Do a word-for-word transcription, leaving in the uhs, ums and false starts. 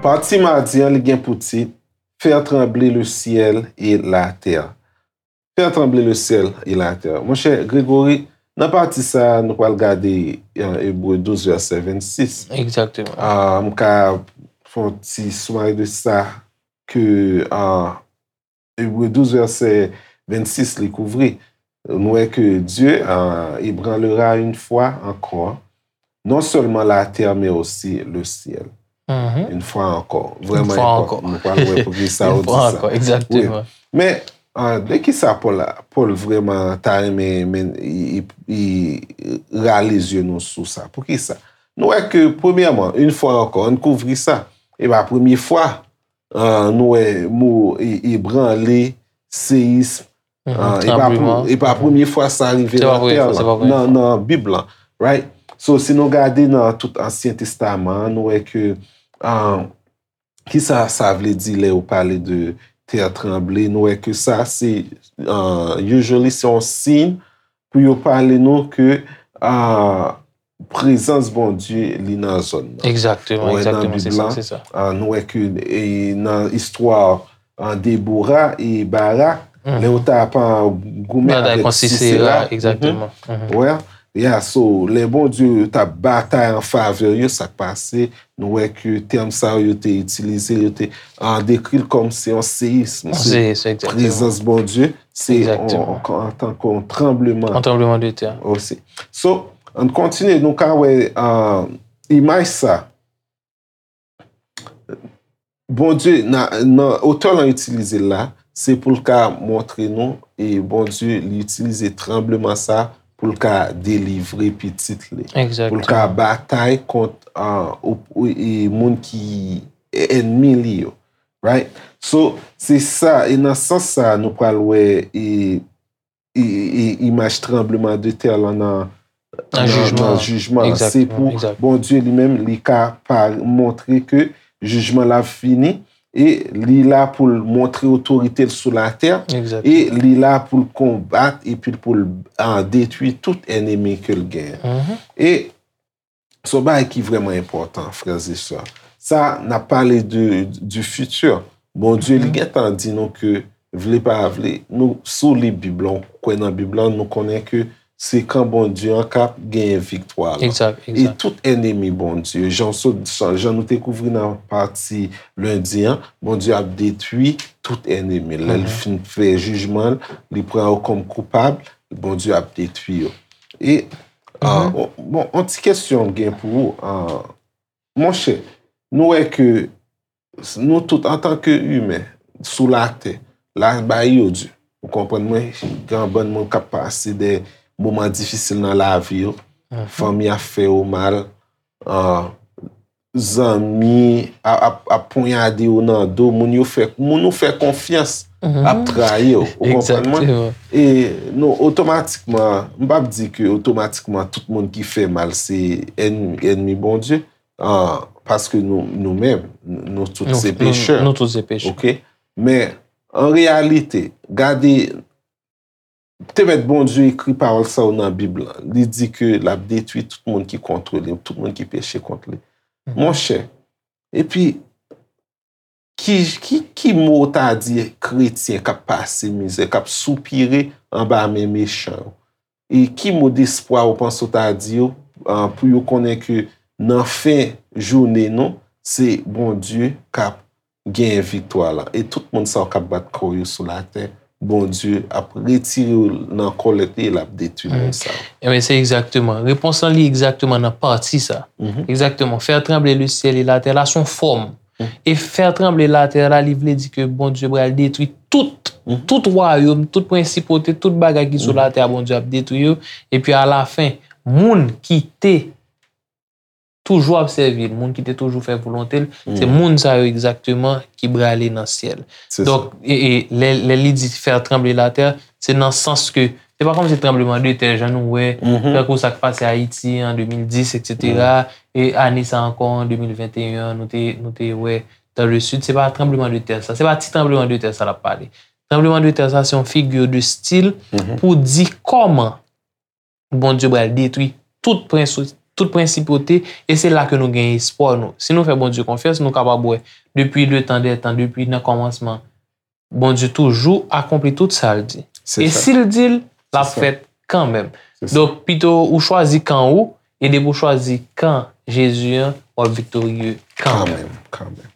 Pati madi an, li gen pou tit Faire trembler le ciel et la terre. Faire trembler le ciel et la terre. Monchè Gregory, nan pati sa a, nou pral gade, euh, Ebre douz, vèsè vennsis. Egzakteman. Ah, m ka fè yon ti soumari de sa ke, ah, Ebre douz, vèsè vennsis, li kouvri. Nou wè ke Dieu, ah, ébranlera une fois encore, non seulement la terre, mais aussi le ciel. Mhm. Une fois encore. Vrèman enpòtan. Nou pral wè poukisa yo di sa. Une fois encore, exactement. Wi. Men, ah, de ki sa Pòl, Pòl vrèman ta renmen, men, i, i, i rale zye nou sou sa? Poukisa? Nou wè ke, premyèman, une fois encore, ann kouvri sa. E pa premye fwa, ah, nou wè mo e, ebranle, seyism, ah, e pa pou, e pa premye fwa sa rive nan tè lan, nan, nan Bib lan, right? So, si nou gade nan tout Ansyen Testaman an, nou wè ke, ah, kisa sa vle di lè yo pale de terre tremblée? Nou wè ke sa, se, ah, usually, se yon siy pou yo pale nou ke, ah, prezans Bondye, li nan zòn nan. Egzakteman, egzakteman, se sa, se sa. Ah, nou wè ke, e, nan istwa, ah, Debora e Barak, lè yo t ap, ah, goumen avèk Sisera, egzakteman. Wè, yeah, so, lè Bondye t ap batay an favè yo, sa k pase, nou wè ke tèm sa yo, yo te itilize, yo te, ah, dekri l kòm se yon seyism, se prezans Bondye, se antanke yon tranbleman. Yon tranbleman de tè. Osi. So, ann kontinye, nou ka wè, ah, imaj sa. Bondye, nan, nan otè lan itilize l la, se pou l ka montre nou, e Bondye, li itilize tranbleman sa pou l ka delivre pitit li. Pou l ka batay kont, ah, ou, ou, e moun ki ènmi li yo. Right? So, se sa, e nan sans sa, nou pral wè, e, e, e, imaj tranbleman de tè lan nan, nan, nan jijman an. Se pou Bondye li menm, li ka pa montre ke jijman l ap fini, e li la pou l montre otorite l sou latè, e li la pou l konbat, epi pou l, ah, detwi tout ènmi ke l genyen. E se yon bagay ki vrèman enpòtan, frè e sè. Sa, n ap pale de, du futur. Bondye, li gentan di nou ke, vle pa vle, nou, si w li Bib lan, ou kwè nan Bib lan, nou konnen ke se kan Bondye an k ap genyen viktwa lan. Egzak, egzak. E tout ènmi Bondye, jan w sot, jan nou te kouvri nan pati lendi an, Bondye ap detwi tout ènmi l. Lè l fin fè jijman l, li pran yo kòm koupab, Bondye ap detwi yo. E, ah, bon, yon ti kesyon m gen pou ou, ah, monchè, nou wè ke nou tout, antanke imen, sou latè, la bay yo di. Ou konprann mwen, gen yon bann moun k ap pase de moman difisil nan lavi yo, fanmi ap fè yo mal, ah, zanmi ap, ap, ap ponyade yo nan do, moun yo fè, moun ou fè konfyans ap trayi w, ou konprann mwen? Egzakteman. E nou otomatikman, m p ap di ke otomatikman tout moun ki fè mal se ènmi, ènmi Bondye, ah, paske nou, nou menm, nou tout se pechè. Nou tout se pechè. Oke? Men, an reyalite, gade, te mèt Bondye ekri pawòl sa yo nan Bib lan. Li di ke l ap detwi tout moun ki kont li, tout moun ki peche kont li. Monchè, epi, ki, ki, ki mo w ta di kretyen k ap pase mizè, k ap soupire anba men mechan yo? E ki mo desprwa ou panse w ta di yo, ah, pou yo konnen ke nan fen jounen nou, se Bondye k ap genyen viktwa la. E tout moun sa yo k ap bat kò yo sou latè, Bondye ap retire yo nan kòlèt li e l ap detwi moun sa yo. Ebyen, se egzakteman. Repons lan li egzakteman nan pati sa. Egzakteman. Faire trembler le ciel et la terre la, se yon fòm. E faire trembler la terre la, li vle di ke Bondye pral detwi tout, tout wayòm, tout prensipote, tout bagay ki sou latè a, Bondye ap detwi yo. Epi alafen, moun ki te toujou ap sèvi l, moun ki te toujou fè volonte l, se moun sa yo egzakteman ki prale nan syèl. Donk, e, e, lè, lè li di faire trembler la terre, se nan sans ke, se pa kòmsi tranbleman de tè, jan nou wè, tankou sa k pase Ayiti an de mil dis, et cetera, e ane sa ankò, an de mil venteyen an, nou te, nou te wè dans le sud, se pa tranbleman de tè sa, se pa ti tranbleman de tè sa l ap pale. Tranblemanntè sa se yon figure de style pou di kòman Bondye pral detwi tout prens, tout prensipalite, e se la ke nou gen espwa nou. Si nou fè Bondye konfyans, nou kapab wè depi le tan dè tan, depi nan kòmansman, Bondye toujou akonpli tout sa l di. E si l di l, l ap fèt kanmenm. Donk, pito ou chwazi kan ou, e depi ou chwazi kan Jezi an, w ap viktorye kanmenm. Kanmenm.